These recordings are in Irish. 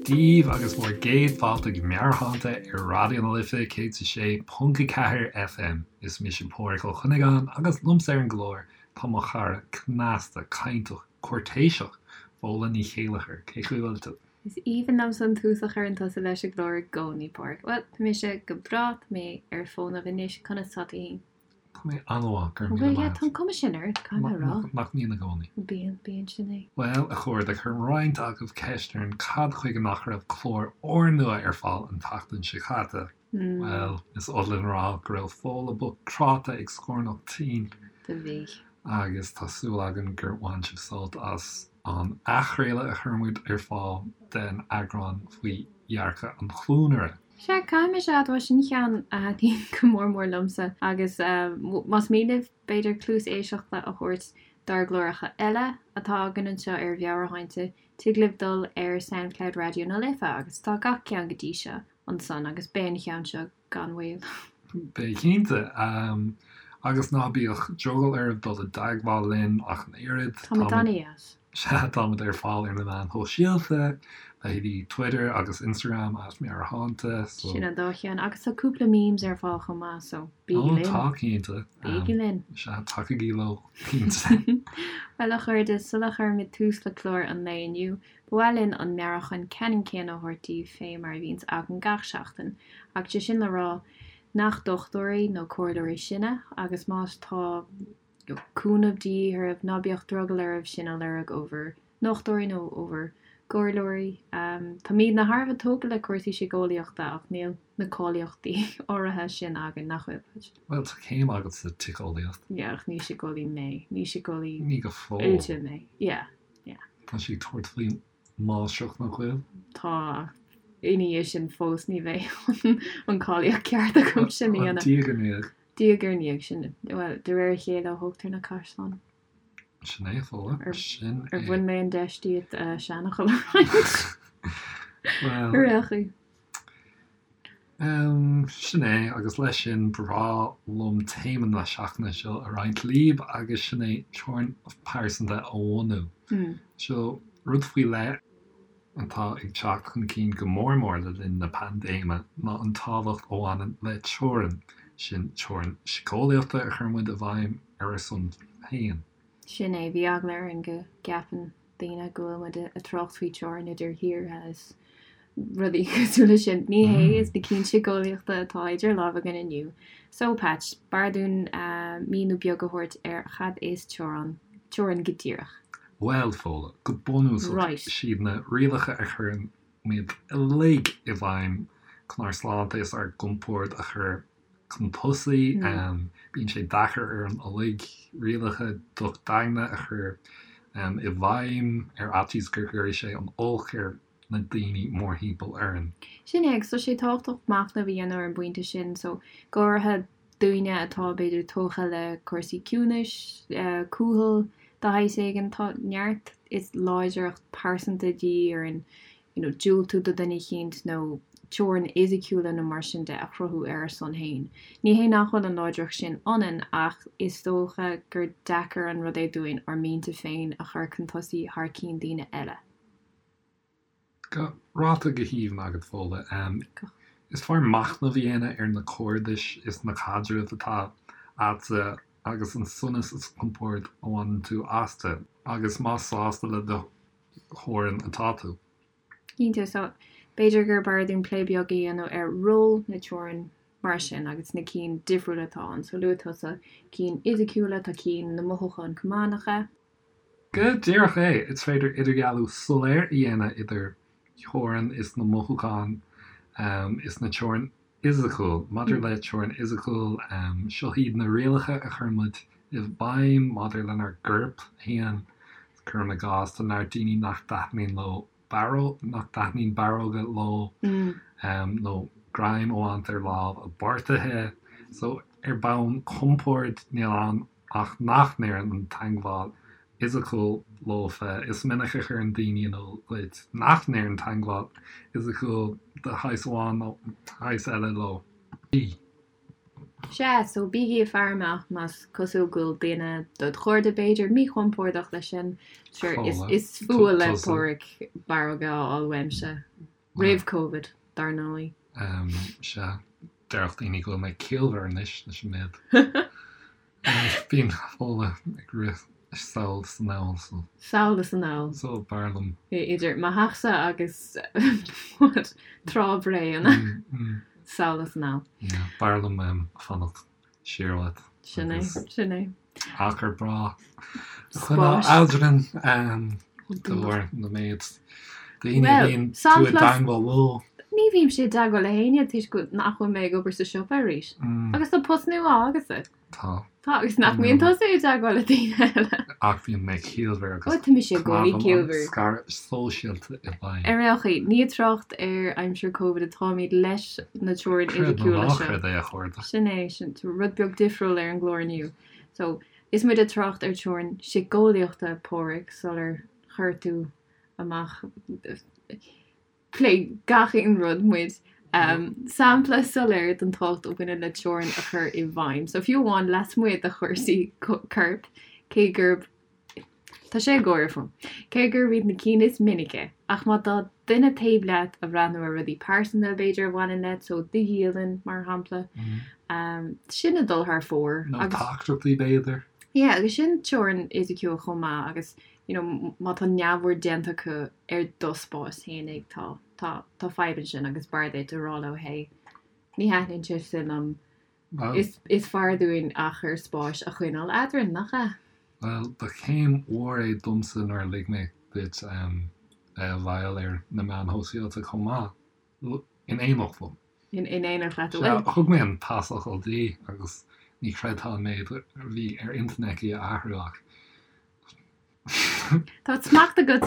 daoibh agus bhur gcéad fáilte go Meabhairshláinte ar Raidió na Life 106.4 FM. Is mise Pádhraic Ó Cuinneagáin agus liomsa ar an gclár tá mo chara cneasta, cainteach, cúirtéiseach, Fódhla Ní Chéilleachair. Cén chaoi a bhfuil tú? Is aoibhinn liomsa an tús a chuireann tusa leis an gclár i gcónaí, Pádhraic. Bhuel, tá mise go breá, tá mé ar fónamh anois, conas tá tú fhéin? Tá mé an-mhaith, go raibh míle Bhuel, yeah, maith tá an cuma sin ort, caithfidh mé a rá. Nach mbíonn i gcónaí? Bíonn, bíonn, sin é. Bhuel, a chairde, chuir roinnt agaibh ceist orainn cad chuige nach raibh clár úrnua ar fáil an tseachtain seo caite. Bhuel, is oth linn a rá go raibh Fódhla bocht cráite ag scornach tinn. Do bhí. Agus tá súil againn gur bhain sibh sult as an athchraoladh a chuir muid ar fáil den eagrán faoi dhearcadh an chluanaire. Sea, caithfidh mise a admháil, sin ceann a thaitníonn go mór mór liomsa agus más mian libh b'fhéidir cluas éisteachta a thabhairt dár gcláracha eile atá againn anseo ar Mheabhairshláinte, tig libh dul ar Soundcloud Raidió na Life agus tá gach ceann go dtí seo ansan agus beidh an cheann seo gan mhoill. Beidh cinnte. Agus ná bíodh drogall oraibh dul i dteagmháil linn ach an oiread. Táimid an-deas. Sea, táimid ar fáil ar na meáin shóisialta, leithéidí Twitter agus Instagram, at Meabhairshláinte, so. Sin an dá cheann. Agus tá cúpla memes ar fáil chomh maith, so bígí linn. Ó, tá, cinnte. Bígí linn. Sea, tacaigí leo, cinnte. Bhuel, a chairde, sula chuirimid tús le clár an lae inniu, ba mhaith linn an meabhrúchán ceannann céanna a thabhairt daoibh fé mar a bhíonns againn gach seachtain, ach sé sin le rá nach dochtúirí nó comhairleoirí sinne, agus má tá cúnamh de dhíth oraibh, ná bíodh drogall oraibh sin a lorg ó bhur ndochtúirí nó ó bhur gcomhairleoirí. Táimidne thar a bheith tógtha le cúrsaí síceolaíochta ach níl na cáilíochtaí áirithe sin againn, nach bhfuil, Patch? Bhuel, tá céim agat sa tsíceolaíocht. Yeah, ach ní síceolaí mé. Ní síceolaí Ní go fóill. oilte mé. Yeah, yeah. Tá sí ag tabhairt faoin máistreacht, nach bhfuil? Tá, ach ina dhiaidh sin fós ní bheidh an cáilíocht ceart agam sin a dhéanamh. Diaidh ar ndiaidh. Diaidh ar ndiaidh, sin, bhuel, de réir a chéile a thógtar na caisleáin. Sin é, a Fódhla, sin é. Ar bhain mé an deis díot seanfhocal a roinnt? Bhuel. Ar aon chaoi. Sin é, agus leis sin, ba bhreá liom téama na seachtaine seo a roinnt libh, agus sin é teorainn pearsanta a bhunú. Seo rud faoi leith. atá ag teacht chun cinn go mór mór le linn na paindéime ná an tábhacht a bhaineann le teorainn, sin teorainn síceolaíochta a chuireann muid i bhfeidhm ar ár son féin. Sin é, bhí eagla orainn go gceapann daoine go bhfuil muid ag trácht faoi teorainn idir thíortha is rudaí cosúil leis sin. Ní hé, is na cinn síceolaíochta atá idir lámha againn inniu. So, Patch, b'fhearr dúinn míniú beag a thabhairt ar cad is teorainn, teorainn go díreach. Bhuel, Fódhla, go bunúsach, Right. siad na rialacha a chuireann muid uilig i bhfeidhm chun ár sláinte is ár gcompord a chur chun tosaigh. Bíonn sé deacair orainn uilig rialacha docht daingne a chur i bhfeidhm ar fhaitíos go gcuirfidh sé an olc ar na daoine mórthimpeall orainn. Sin é, agus tá sé tábhachtach machnamh a dhéanamh ar an bpointe sin, so go háirithe daoine atá b'fhéidir tógtha le cúrsaí ciúnais, cúthail de shaghas éigin, tá neart is láidreacht pearsanta de dhíth orainn you know diúltú do dhuine eicínt nó teorainn fhisiciúla nó mar sin de a chruthú ar ár son féin. Ní hé nach bhfuil an láidreacht sin ionainn ach is dócha gur deacair an rud é dúinn ár mianta féin a chur chun tosaigh thar cinn daoine eile. Go ráite go haoibhinn agat, Fódhla. Is fearr machnamh a dhéanamh ar na cairdis is na caidrimh atá agatsa agus an sonas is compord a bhaineann tú astu, agus más sásta le do theorainn atá tú. Cinnte, so b'fhéidir gur b'fhearr dúinn plé beag a dhéanamh ar ról na teorann mar sin agus na cinn difriúla atá ann. So luaigh tusa cinn fhisiciúla, tá cinn na mothúchán chomh maith, nach ea? Go díreach é! Is féidir idirdhealú soiléir a dhéanamh idir theorainn is na mothúchán is na teorainn fhisiciúil. Maidir le teorainn fhisiciúil, seo iad na rialacha a chuireann muid i bhfeidhm maidir lenár gcorp féin. Cuirim i gcás, tá neart daoine nach dtaitníonn leo barróg, nach dtaitníonn barróga leo nó greim a bhaint ar lámh a bpáirtithe. So, ar bhonn compoird, níl ann ach nach n-oireann an teagmháil fhisiciúil leofa. Is minic a chuireann daoine in iúl duit nach n-oireann teagmháil fhisiciúil de shaghas amháin nó shaghas eile leo. Sea, so bígí ag faire amach más cosúil go bhfuil duine dod chairde, b'fhéidir, míchompordach leis sin. Sure, is fuath le Pádraig barróga a fháil uaimse. Roimh Covid, dar ndóigh. Sea, déarfadh daoine go bhfuil mé ciallmhar anois leis an méid. Bíonn Fódhla ag rith sall is anall so. Sall is anall. So b'fhearr liom. Idir mo theachsa agus what, Trá Bhré, an ea? Sall is anall. Yeah, b'fhearr liom fanacht siar uait. Sin é, sin é. Achar breá a choinneáil eadrainn de bharr na méid daoine a bhíonn tú i dteangmháil leo. Ní bhímse i dteagmháil le héinne toisc nach bhfuil mé ag obair sa siopa arís. Agus tá post nua agatsa. Tá. Tá, agus nach mbíonn tusa i dteagmháil le daoine eile? Ach bíonn mé ciallmhar agus Ó, tá mise i gcónaí ciallmhar. scaradh sóisialta i bhfeidhm. Ar aon chaoi, ní ag trácht ar aimsir Covid atáimid leis na teorainn Creid nó fhisiciúla ná seo. creid é, a chairde. Sin é, sin rud beag difriúil ar an gclár inniu. So, is muid ag trácht ar teorainn síceolaíochta, Páraic, sular chuir tú amach Pléigh gach aon rud muid. Sampla soiléir den tábhacht a bhaineann le teorainn a chur i bhfeidhm. So fiú amháin lasmuigh de chúrsaí coirp, cé gurb Tá sé ag gáire fúm. Cé gurb iad na cinn is minice, ach má tá duine taobh leat a bhreathnú ar rudaí pearsanta b'fhéidir a bhaineann leat, so do dhialann mar shampla, sin ag dul thar fóir. Nó teachtaireachtaí b'fhéidir. Yeah, agus sin teorainn fhisiciúil chomh maith agus you know, má tá neamhaird déanta acu ar do spás fhéinig, tá, tá, tá fadhb ansin agus b'fhearr duit a rá leo, hey, ní thaitníonn sé sin liom, is, is fearr dúinn achar spáis a choinneáil eadrainn, nach ea? Bhuel, ba chéim mhór é domsa nuair a lig mé duit bheith i bhfeighil ar na meáin shóisialta chomh maith, in éineacht liom. In éineacht leat, an bhfuil? Sea, thug mé an pasfhocal di agus ní chreidfeá an méid a bhí ar intinn aici a athrú ach Tá smacht agat,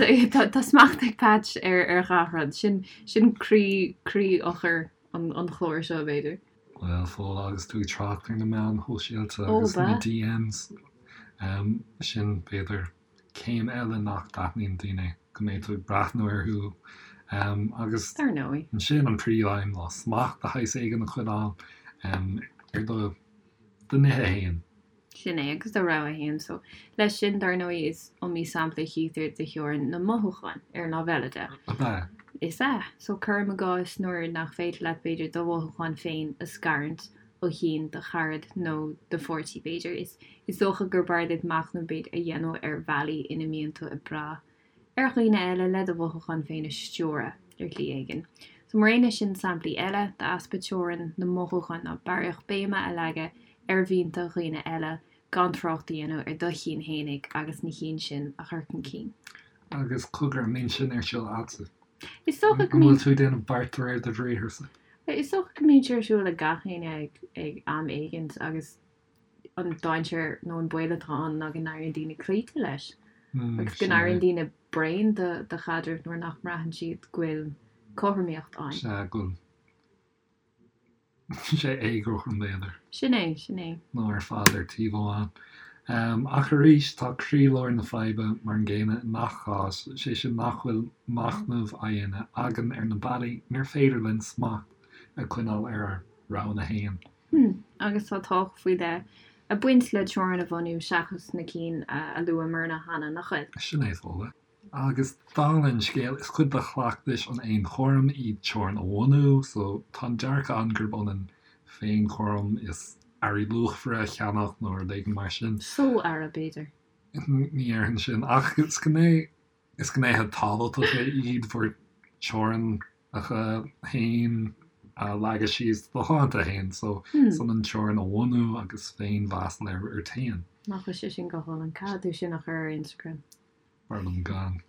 tá smacht ag Patch ar ar gach rud. Sin sin croí croí-eochair an an chláir seo, b'fhéidir. Bhuel, Fódhla, agus tú ag trácht ar na meáin shóisialta agus na DMs, sin, b'fhéidir, céim eile nach dtaitníonn daoine, go mbeidh tú ag breathnú orthu agus Dar ndóigh. ansin an príomhaidhm ná smacht de shaghas éigin a choinneáil ar do do nithe féin. Sin é, agus do rogha fhéin. So, leis sin, dar ndóigh, is iomaí sampla a chítear de theorainn na mothúchán, ar an lámh eile de. Ab ea? Is ea. So, cuirim i gcás nuair nach féidir leat, b'fhéidir, do mhothúcháin féin a scarúint ó chinn do charad nó do pháirtí, b'fhéidir. Is, is dócha gur b'fhearr duit machnamh, b'fhéidir, a dhéanamh ar bhealaí ina mbíonn tú ag brath ar dhaoine eile le do mhothúcháin féin a stiúradh ar shlí éigin. So mar aon leis sin samplaí eile d'easpa teorann na mothúchán ná barraíocht béime a leagadh ar mhianta dhaoine eile gan trácht a dhéanamh ar do chinn fhéinig agus na chinn sin a chur chun cinn. Agus cogar, an mbíonn sin ar siúl a'dsa? Is dócha go mbíonn. An bhfuil tú ag déanamh beart de réir do bhriatharsa? Is dócha go mbíonn sé ar siúl ag gach éinne ag am éigint agus an dainséar nó an baol atá ann ná go n-éiríonn daoine cloíte leis agus go n-éiríonn daoine bréan de de chaidreamh nuair nach mbraitheann siad go bhfuil cothromaíocht ann. Sea, go bhfuil sé éagothrom b'fhéidir. Sin é, sin é. Nó ar fad ar taobh amháin. Ach arís, tá croílár na faidhbe mar an gcéanna i ngach cás, sé sin nach bhfuil machnamh á dhéanamh againn ar na bealaí inar féidir linn smacht a choinneáil ar ár roghanna féin. Hmm, agus tá tábhacht faoi leith ag baint le teorainn a bhunú seachas na cinn a luamarna cheana, nach bhfuil? Sin é, Fódhla. Agus dála an scéil, is cuid de chleachtais an fhéinchúraim í teorainn a bhunú, so tá an dearcadh ann gurb ionann féinchúram is earraí luachmhara a cheannach nó rud éigin mar sin. Só-earra, b'fhéidir. Ní déarfainn sin, ach is gné, is gnéithe tábhachtacha iad bhur dteorainneacha féin a leagadh síos do shláinte féin, so is ionann teorainn a bhunú agus féinmheas a léiriú ort féin. Nach bhfuil sé sin go hálainn? Caithfidh tú sin a chur ar Instagram. B'fhearr liom gan.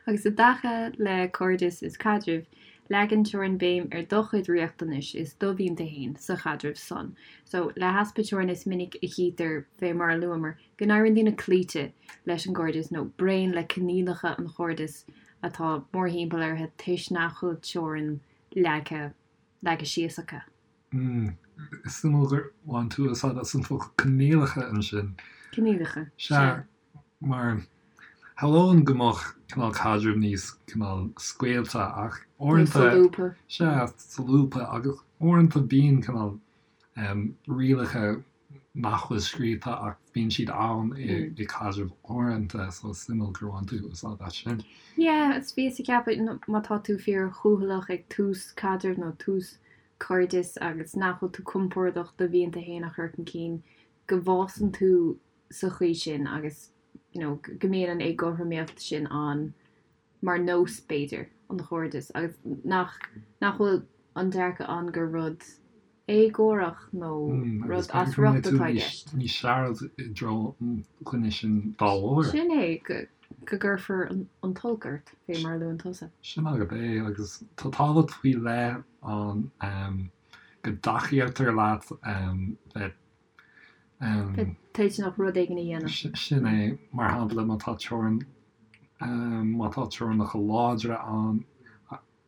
Agus i dtaca le cairdeas is caidrimh, leagann teorainn béim ar do chuid riachtanais is do mhianta fhéin sa chaidreamh san. So, le heaspa teorann is minic a chítear, fé mar a luamar, go n-éiríonn daoine cloíte leis an gcairdeas nó bréan le coinníollacha an chairdis atá mórthimpeall orthu toisc nach bhfuil teorainn leagtha leagtha síos acu. Mm. Is suimiúil gur bhain tú úsáid as an focal coinníollacha ansin. Coinníollacha. Sea, mar shamhlóinn go mbeadh cineál caidreamh níos cineál scaoilte ach uaireanta. Solúbtha. Sea, solúbtha agus uaireanta bíonn cineál rialacha. nach bhfuil scríofa ach bíonn siad ann i caidrimh uaireanta so is suimiúil gur bhain tú úsáid as sin. Yeah, is bhíos ag ceapadh má tá tú fíor chúthaileach ag tús caidrimh nó tús cairdis agus nach bhfuil tú compordach do mhianta féin a chur chun cinn, go bhfásann tú sa chaoi sin agus you know go mbíonn an éagothromaíocht sin ann mar nós, b'fhéidir, an chairdis agus nach nach bhfuil an dearcadh ann gur rud éagórach nó rud as riocht atá i gceist. Níos searbh i dtreo an dhuine sin dá bharr. Sin é, go gcuirfear an t-olc ort, fé mar a luann tusa. Sin agat é, agus tá tábhacht faoi leith ann go dtacaítear leat bheith. Bheith toilteanach rud éigin a dhéanamh. Sin é, mar shampla, má tá teorainn, má tá teorainneacha láidre ann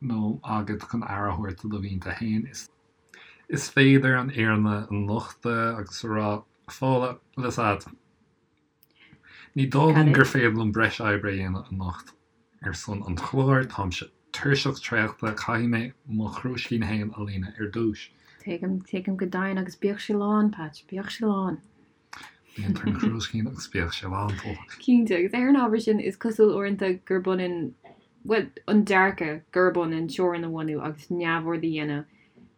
nó agat chun aire a thabhairt do do mhianta féin, is féidir an fhírinne a nochtadh agus a rá, Fódhla, bhfuil a fhios agat, Ní dóigh liom gur féidir liom breis oibre a dhéanamh anocht ar son an chláir, táimse tuirseach traochta, caithfidh mé mo chrúiscín féin a líonadh ar dtús. Tuigim, tuigim go deimhin, agus bíodh sé lán, Patch, bíodh sé lán. Líontar an crúiscín agus bíodh sé lán, Fódhla. Cinnte, agus ar an ábhar sin, is cosúil uaireanta gurb ionann, bhuel, an dearcadh gurb ionann teorainn a bhunú agus neamhaird a dhéanamh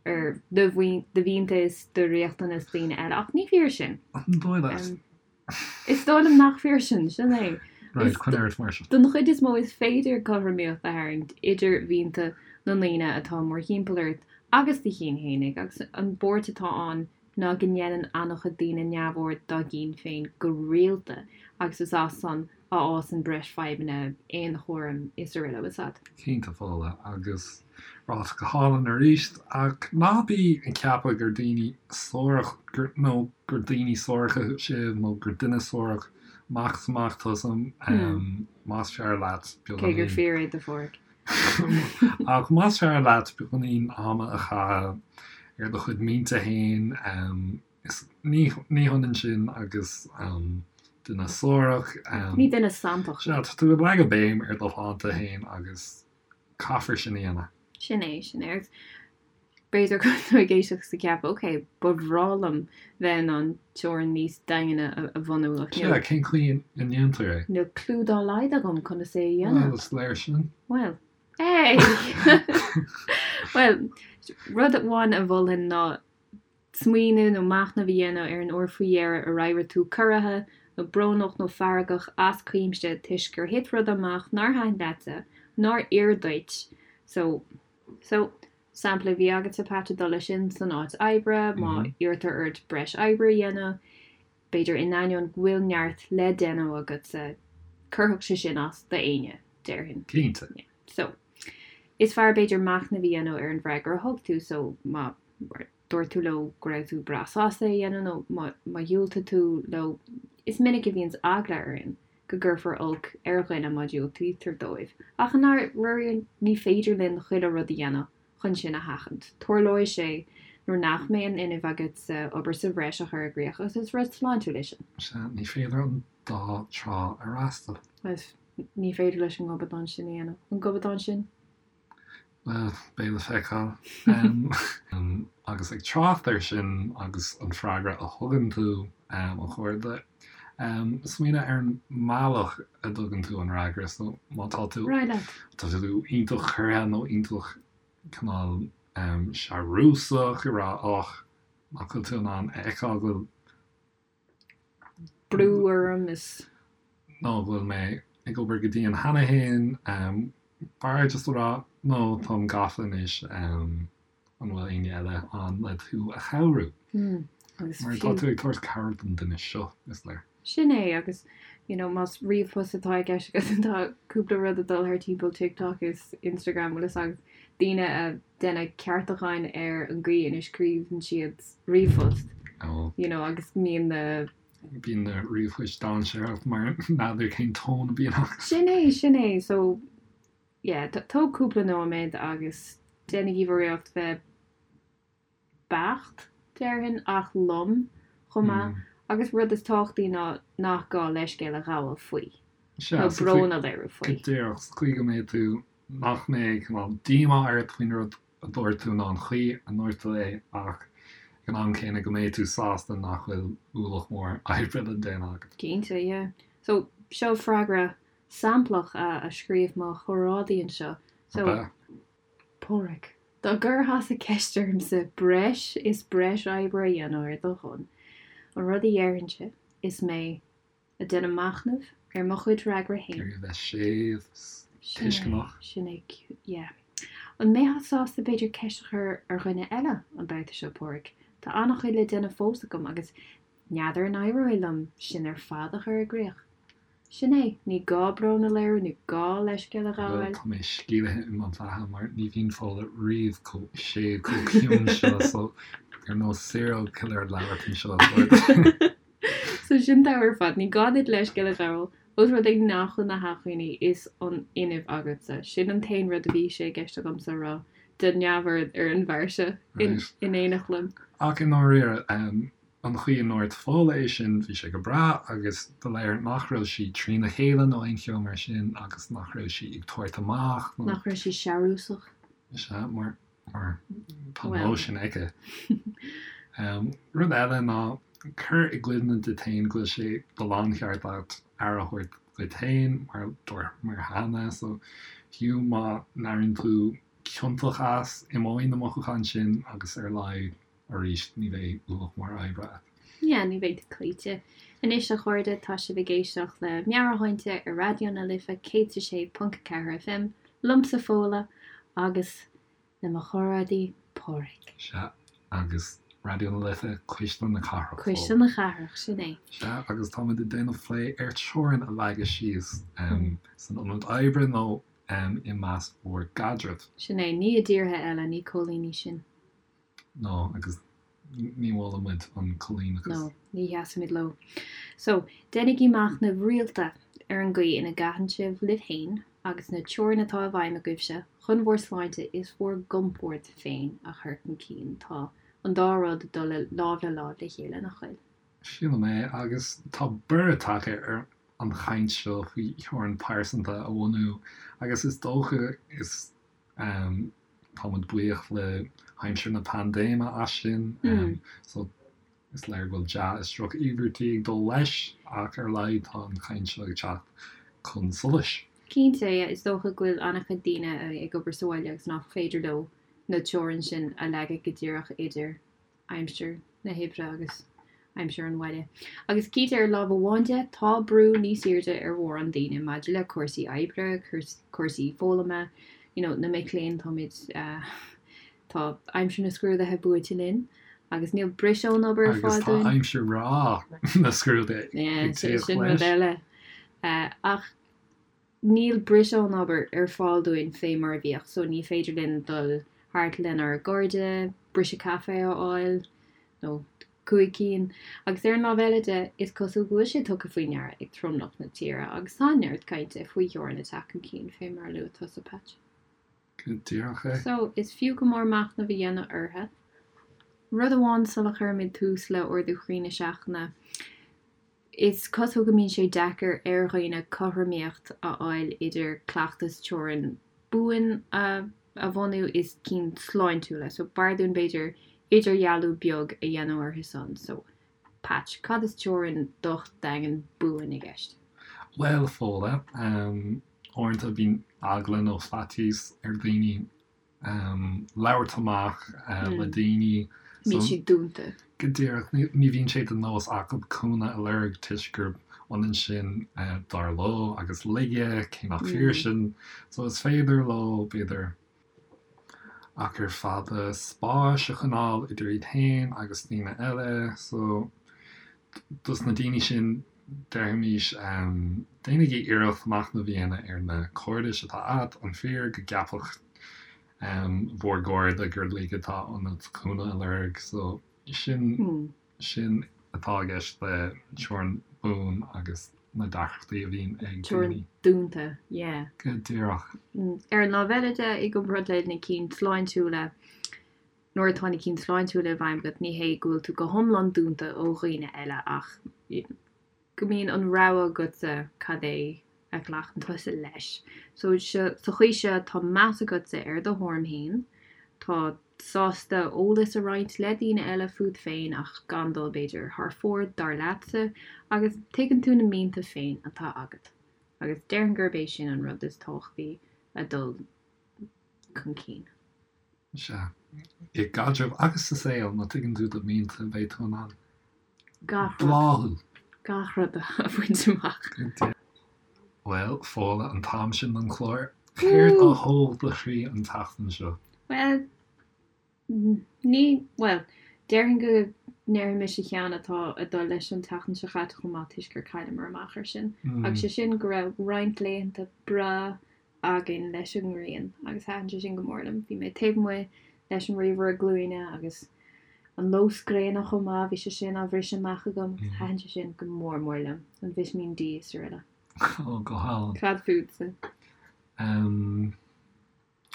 ar do mhianta is do riachtanais daoine eile, ach ní fíor sin. An dóigh leat? Is dóigh liom nach fíor sin, sin é. Right, coinnigh ort mar sin. Don chuid is mó is féidir cothromaíocht a tharraingt idir mhianta na ndaoine atá mórthimpeall ort agus do chinn fhéinig, agus an buairt atá ann ná go ndéanann an-chuid daoine neamhaird dá gcinn féin go rialta agus is as san a fhásann breis fadhbanna, aonchúraim is araile. Bhfuil a fhios agat. Cinnte, Fódhla, agus ráite go hálainn arís, ach ná bí ag ceapadh gur daoine suarach, gur, nó gur daoine suaracha sibh, nó gur duine suarach amach is amach tusa, más fearr leat beagáinín. Cé gur fíor é do Pháraic. Ach más fearr leat beagáinín ama a chaitheamh ar do chuid mianta féin, Is ní hionann sin agus duine suarach. Ní duine santach. Sea, tá tú ag leagadh béim ar do shláinte féin agus caithfear sin a dhéanamh. Sin é, sin é. Agus b'fhéidir go bhfuil tú ag éisteacht is ag ceapadh, ok, ba bhreá liom bheith in ann teorainn níos daingne a bhunú ach níl. Sea, cén chaoi a ndéantar é? Níl clue dá laghad agam conas é a dhéanamh. Bhuel, is léir sin. Bhuel, hey! Bhuel, rud amháin a mholfainn ná Smaoineamh nó machnamh a dhéanamh ar an uair faoi dheireadh a raibh tú corraithe nó brónach nó feargach as cuimse toisc gur thit rud amach nár thaitin leatsa, nár oir duit. So, so, sampla a bhí agatsa Pat ag dul leis sin san áit oibre, má iarrtar ort breis oibre a dhéanamh, b'fhéidir in ainneoin go bhfuil neart le déanamh agatsa, cuirfeadh sé sin as d'éinne, déarfainn. Cinnte. Yeah. So, is fearr b'fhéidir machnamh a dhéanamh ar an bhfreagra a thug tú, so má dúirt tú leo go raibh tú breá sásta é a dhéanamh nó má dhiúltaigh tú leo, is minic a bhíonns eagla orainn go gcuirfear olc ar dhuine má dhiúltaítear dóibh. Ach i ndáiríre ní féidir linn chuile rud a dhéanamh chun sin a sheachaint. Tarlóidh sé nuair nach mbeidh an fhuinneamh agatsa obair sa bhreis a chur i gcrích agus is rud sláintiúil é sin. Sea, ní féidir an dá trá a fhreastal. Agus ní féidir leis an ngobadán sin a dhéanamh. An gobadán sin? Bhuel, beidh le feiceáil. Agus ag trácht air sin agus an freagra a thugann tú, a chairde, smaoinigh ar an mbealach a dtugann tú an fhreagra. So, má tá tú, tá tú iontach corraithe nó iontach cineál searúsach ag rá, och, nach bhfuil tú in ann a fheiceáil go bhfuil brú orm is. nó go bhfuil mé ag obair go dian cheana féin, b'fhearr just a rá no táim gafa anois, an bhfuil éinne eile ann le tú a chabhrú? Mar tá tú ag tabhairt cabhair don duine seo, is léir. Sin é, agus you know más ríomhphost atá i gceist agat tá cúpla rud ag dul thar timpeall TikTok is Instagram bhfuil fhios agat, daoine ag déanamh ceartúcháin ar an gcaoi ina scríobhann siad ríomhphost you know agus mbíonn na. Bíonn na ríomhphoist dainséarach mar n'fheadar cén tón a bhíonn acu. Sin é, sin é. So, yeah, tóg cúpla nóiméad agus déanaigí bhur iarracht bheith beacht, déarfainn, ach lom chomh maith. Agus rud is tábhachtaí ná nach gá leithscéal a ghabháil faoi. Sea, Nó brón a léiriú faoi. Go díreach, sa chaoi go mbeidh tú, nach mbeidh cineál díomá ort faoin rud a dúirt tú ná an chaoi a ndúirt tú é ach ag Ag an am céanna go mbeidh tú sásta nach bhfuil ualach mór oibre le déanamh agat. Cinnte, yeah. So, seo freagra samplach a scríobh mo chomrádaí anseo. So, Ab ea? Pádraig, dá gcuirfeása ceist ormsa breis is breis oibre a dhéanamh ar do shon, an rud a dhéarfainnse is mé ag déanamh machnaimh ar mo chuid fhreagra féin. Ag iarraidh a bheith séimh 's tuisceanach. Sin é, yeah. An mbeifeá sásta b'fhéidir ceist a chur ar dhuine eile an babhta seo, Pádraig? Tá an-chuid le déanamh fós agam agus n'fheadar an éireoidh liom sin ar fad a chur i gcrích. Sin é, ní gá brón a léiriú, ní gá leithscéal a Bhuel, ghabháil. tá mé sceimhlithe i mo bheatha mar ní bhíonn Fódhla riamh chomh séimh, chomh ciúin seo, so ar nós serial killer ag labhairt anseo. So sin togha ar fad, ní gá duit leithscéal a ghabháil, ós rud é nach bhfuil na hacmhainní is an fhuinneamh agatsa. Sin an t-aon rud a bhí sé i gceist agamsa a rá, déan neamhaird ar an bhfear seo in éineacht liom. Ach i ndáiríre, An chaoi a ndúirt Fódhla é sin, bhí sé go breá agus ba léir nach raibh sí trína chéile nó aon cheo mar sin agus nach raibh sí ag tabhairt amach nó. Nach raibh sí searúsach. Sea, mar, mar tá an nós sin aici. Rud eile ná cuir i gcuimhne duit féin go bhfuil sé de láncheart agat aire a thabhairt duit féin mar dúramar cheana so fiú má n-airíonn tú ciontach as, imeoidh na mothúcháin sin agus ar a laghad Arís, ní bheidh ualach mór oibre agat. Yeah, ní bheidh tú cloíte. Anois, a chairde, tá sibh ag éisteacht le Meabhairshláinte ar Raidió na Life 106.4 FM, liomsa Fódhla agus le mo chomrádaí Pádraig. Sea, agus Raidió na Life, Cuisle na Cathrach. Cuisle na Cathrach, sin é. Sea, agus táimid ag déanamh plé ar teorainn a leagadh síos san ionad oibre nó i measc bhur gcaidreamh. Sin é, ní i dtíortha eile, ní coilíní sinn. No, agus ní mholann muid an coilíneachas. No, ní sheasaimid leo. So, déanaigí machnamh rialta ar an gcaoi ina gcaitheann sibh libh féin agus na teorainn atá i bhfeidhm agaibhse chun bhur sláinte is bhur gcompord féin a chur chun cinn. Tá an dá rud ag dul lámh le láimh le chéile, nach bhfuil? Sílim é, agus tá borradh tagtha ar an chaint seo faoi theorainn pearsanta a bhunú agus is dócha is Tá muid buíoch le haimsir na paindéime as sin. So is léir go bhfuil dea is droch-iarmhairtí ag dul leis ach ar a laghad tá an chaint seo ag teacht chun solais. Cinnte, is dócha go bhfuil an-chuid daoine ag obair sa bhaile agus nach féidir leo na teorainn sin a leagadh go díreach idir aimsir na hoibre agus aimsir an bhaile. Agus cinnte ar lámh amháin de, tá brú níos airde ar mhórán daoine maidir le cúrsaí oibre, cúrsaí foghlama, you know, na mic léinn, táimid, tá aimsir na scrúduithe buailte linn agus níl briseadh ón obair ar fáil dúinn. Agus tá aimsir bhreá na scrúduithe ag tíocht leis. Sin rud eile. Ach Níl briseadh ón obair ar fáil dúinn fé mar a bhíodh so ní féidir linn dul thart lenár gcairde, briseadh caife a fháil, nó 5 cinn. Agus ar an lámh eile de, is cosúil go bhfuil sé tugtha faoi ndeara ag tromlach na tíre agus tá neart cainte faoi theorainn ag teacht chun cinn fé mar a luaigh tusa, Patch. Go díreach é. So, is fiú go mór machnamh a dhéanamh orthu. Rud amháin sula chuirimid tús le Ardú Chroí na Seachtaine, Is cosúil go mbíonn sé deacair ar dhaoine cothromaíocht a fháil idir cleachtas teorann buan a bhunú is cinn sláintiúla, so b'fhearr dúinn b'fhéidir idirdhealú beag a dhéanamh orthu san. So, Patch, cad is teorainn docht daingean buan i gceist? Bhuel, Fódhla, uaireanta bíonn eagla nó faitíos ar dhaoine labhairt amach le daoine. Bíonn siad dúnta. Go díreach. Ní bhíonn sé de nós acu cúnamh a lorg toisc gurb ionann sin, dar leo, agus laige, cé nach fíor sin. So is féidir leo, b'fhéidir, achar fada spáis a choinneáil idir iad féin agus daoine eile. So dos na daoine sin, déarfaimis, déanaigí iarracht machnamh a dhéanamh ar na cairdis atá agat, an fíor go gceapfadh bhur gcairde gur laige atá ionat cúnamh a lorg? So sin, sin atá i gceist le teorainn buan agus na deacrachtaí a bhíonn ag daoine. Teorainn dúnta, yeah. Go díreach. Ar an lámh eile de, i gcomparáid le na cinn sláintiúla, Nuair atá na cinn sláintiúla i bhfeidhm agat, ní hé go bhfuil tú go hiomlán dúnta ó dhaoine eile ach go mbíonn an rogha agatsa cad é a ghlacann tusa leis. So, sa chaoi seo, tá meas agatsa ar do thuairim féin, tá. sásta eolas a roinnt le daoine eile fút féin ach gan dul, b'fhéidir, thar fóir, dar leatsa, agus tuigeann tú na mianta féin atá agat. Agus déarfainn gurb é sin an rud is tábhachtaí le dul chun cinn. Sea. I gcaidreamh agus sa saol, má tuigeann tú do mhianta, beidh tú in ann Gach rud. bláthú. Gach rud a bhaint amach. Bhuel, Fódhla, an t-am sin don chlár. Céard a thóg do chroí an tseachtain seo? Bhuel, ní, bhuel, déarfainn go ndéarfaidh mise ceann atá ag dul leis an tseachtain seo chaite chomh maith toisc gur chailleamar amach air sin. Agus sé sin go raibh roinnt laethanta breá againn leis an ngrian agus thaitin sé sin go mór liom. Bhí mé taobh amuigh leis an ríomhaire glúine agus an lós gréine chomh maith, bhí sé sin á bhriseadh amach agam agus thaitin sé sin go mór mór liom, an Vitimín D is araile. Ó, go hálainn. Cad fútsa? Em,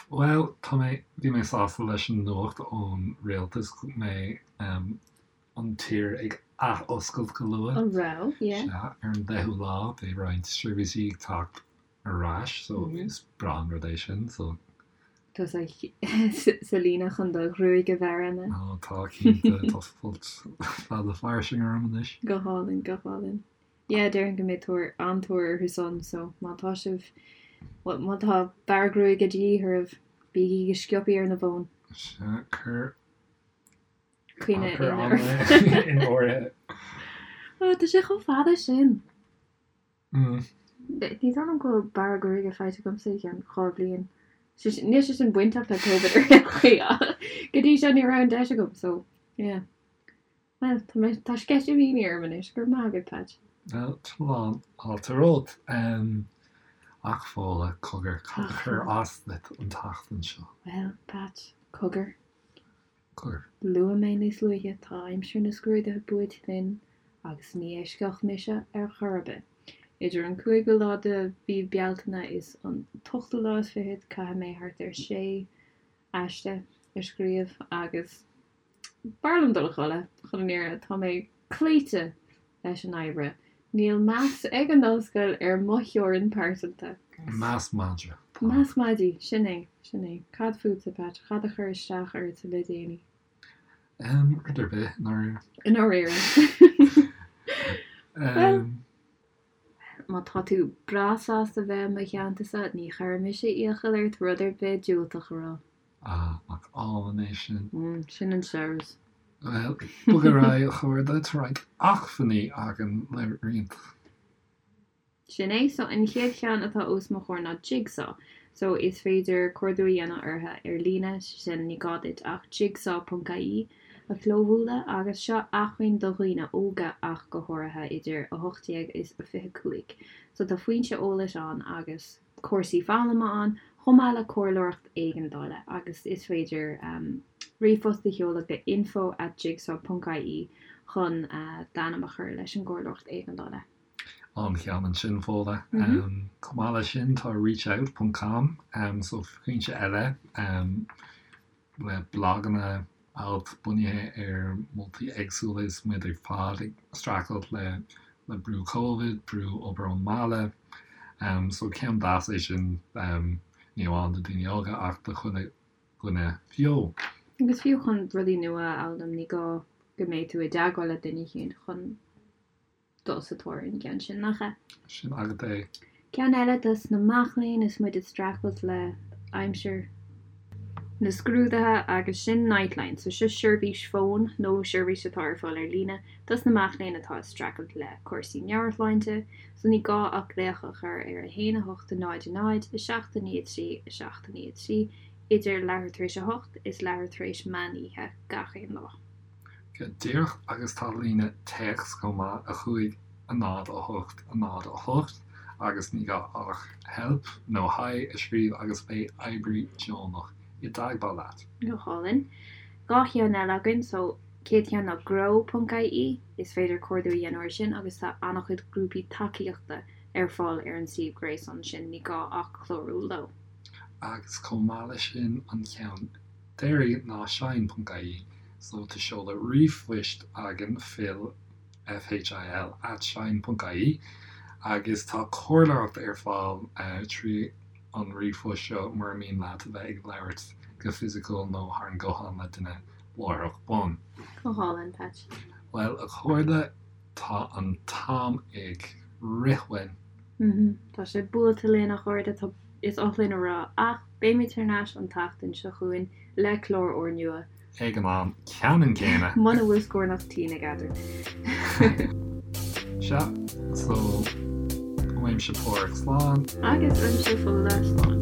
bhuel, tá mé, bhí mé sásta leis an nuacht ón rialtas go mbeidh, em, an tír ag ath-oscailt go luath. An raibh? Yeah. Sea, ar an 10ú lá, beidh roinnt seirbhísí ag teacht ar ais so is breá an rud é sin so. Tá sa sa líne chun do ghruaig a bhearradh ná? Ó tá cinnte, tá folt fada fairsing orm anois. Go hálainn, go hálainn. Yeah, déarfainn go mbeidh tóir, an-tóir orthu san so má tá sibh, bhuel má tá bearradh gruaige de dhíth oraibh, bígí go sciobthaí ar na bhfóin. Sea, cuir Coinne cuir in ama in áirithe. Ó, tá sé chomh fada sin. Ní dóigh liom go bhfuil bearradh gruaige faighte agamsa i gceann 2 bhliain. Níl sé sin bainteach le Covid ar aon chaoi ach go dtí seo ní raibh an deis agam so yeah. Bhuel, tá mé, tá sceitimíní orm anois, go raibh maith agat Patch. Bhuel, tá fáilte romhat. Ach Fódhla, cogar, cad a chuir as duit an tseachtain seo? Bhuel, Patch, cogar. Cogar. Luaigh mé níos luaithe, tá aimsir na scrúduithe buailte linn agus ní eisceacht mise ar chor ar bith. Idir an cúigiú lá de mhí Bealtaine is an t-ochtú lá is fichead caithfidh mé thart ar sé aiste a scríobh agus b'fhearr liom dul a chodladh, chun an fhírinne. Tá mé cloíte leis an oibre. Níl meas ag an ollscoil ar mo theorainn pearsanta. Meas madraí. Meas madaidh, sin é, sin é. Cad fútsa, Patch? Cad a chuir isteach ort le déanaí? Em, rud ar bith, i ndáiríre. I ndáiríre. Bhuel, má tá tú breá sásta bheith i mo theannta-sa, ní chuirfidh mise iachall ort rud ar bith diúltach a rá. Ah, nach álainn é sin. Sin an searbhas. Bhuel, bog ar aghaidh, a chairde, tá roinnt acmhainní againn le roinnt. Sin é. So, an chéad cheann atá os mo chomhair ná Jigsaw. So, is féidir cuardú a dhéanamh orthu ar líne, sé sin, ní gá duit ach jigsaw.ie a chlóbhualadh agus seo acmhainn do dhaoine óga ach go háirithe idir 18 is 25. So, tá foinse eolais ann agus. cúrsaí foghlama ann, chomh maith le comhairleoireacht éigeandála agus is féidir ríomhphost a sheoladh go info at jigsaw ponc ie chun d'ainm a chur leis an gcomhairleoireacht éigeandála. An-cheann ansin, Fódhla. Chomh maith leis sin, tá reachout ponc com, so foinse eile. le blaganna, ailt bunaithe ar mholtaí éagsúla is muid ar fad ag streachailt le le brú Covid, brú obair ón mbaile. So ceann deas é sin, ní amháin do daoine óga ach do chuile dhuine fiú. Agus fiú chun rudaí nua a fhoghlaim, ní gá go mbeidh tú i dteagmháil le duine éicint chun dul sa tóir ar an gceann sin, nach ea? Sin agat é. Ceann eile dos na mac léinn is muid ag streachailt le aimsir na scrúduithe agus sin Nightline. So seo seirbhís fóin nó seirbhís atá ar fáil ar líne dos na mac léinn atá ag streachailt le cúrsaí meabhairshláinte. So ní gá ach glaoch a chur ar 1 8 0 0 7 9 3 7 9 3 idir leathuair tar éis a hocht is leathuair tar éis meán oíche gach aon lá. Go díreach agus tá líne téacs chomh maith, 5 0 8 0 8, agus ní gá ach help nó hi a scríobh agus beidh oibrí deonach i dteagmháil leat. Go hálainn. 2 cheann eile againn, so chéad cheann ná grow ponc ie, is féidir cuardú a dhéanamh air sin agus tá an-chuid grúpaí tacaíochta ar fáil ar an suíomh gréasáin sin, ní gá ach clárú leo. Agus chomh maith leis sin an ceann deiridh ná shine ponc ie so tá seoladh ríomhphoist againn phil, F-H-I-L, at shine ponc ie agus tá comhairleoireacht ar fáil trí an ríomhphost seo mura mian leat a bheith ag labhairt go fisiciúil nó thar an nguthán le duine láithreach bonn. Go hálainn, Patch. Bhuel, a chairde, tá an t-am ag rith uainn. Tá sé buailte linn, a chairde, tá, is oth linn a rá, ach beimid thar n-ais an tseachtain seo chugainn le clár úrnua. Ag an am ceannann céanna. Muna bhfuil scornach tinn eadrainn. Sea, so, uaimse Páraic slán. Agus uaimse Fódhla slán.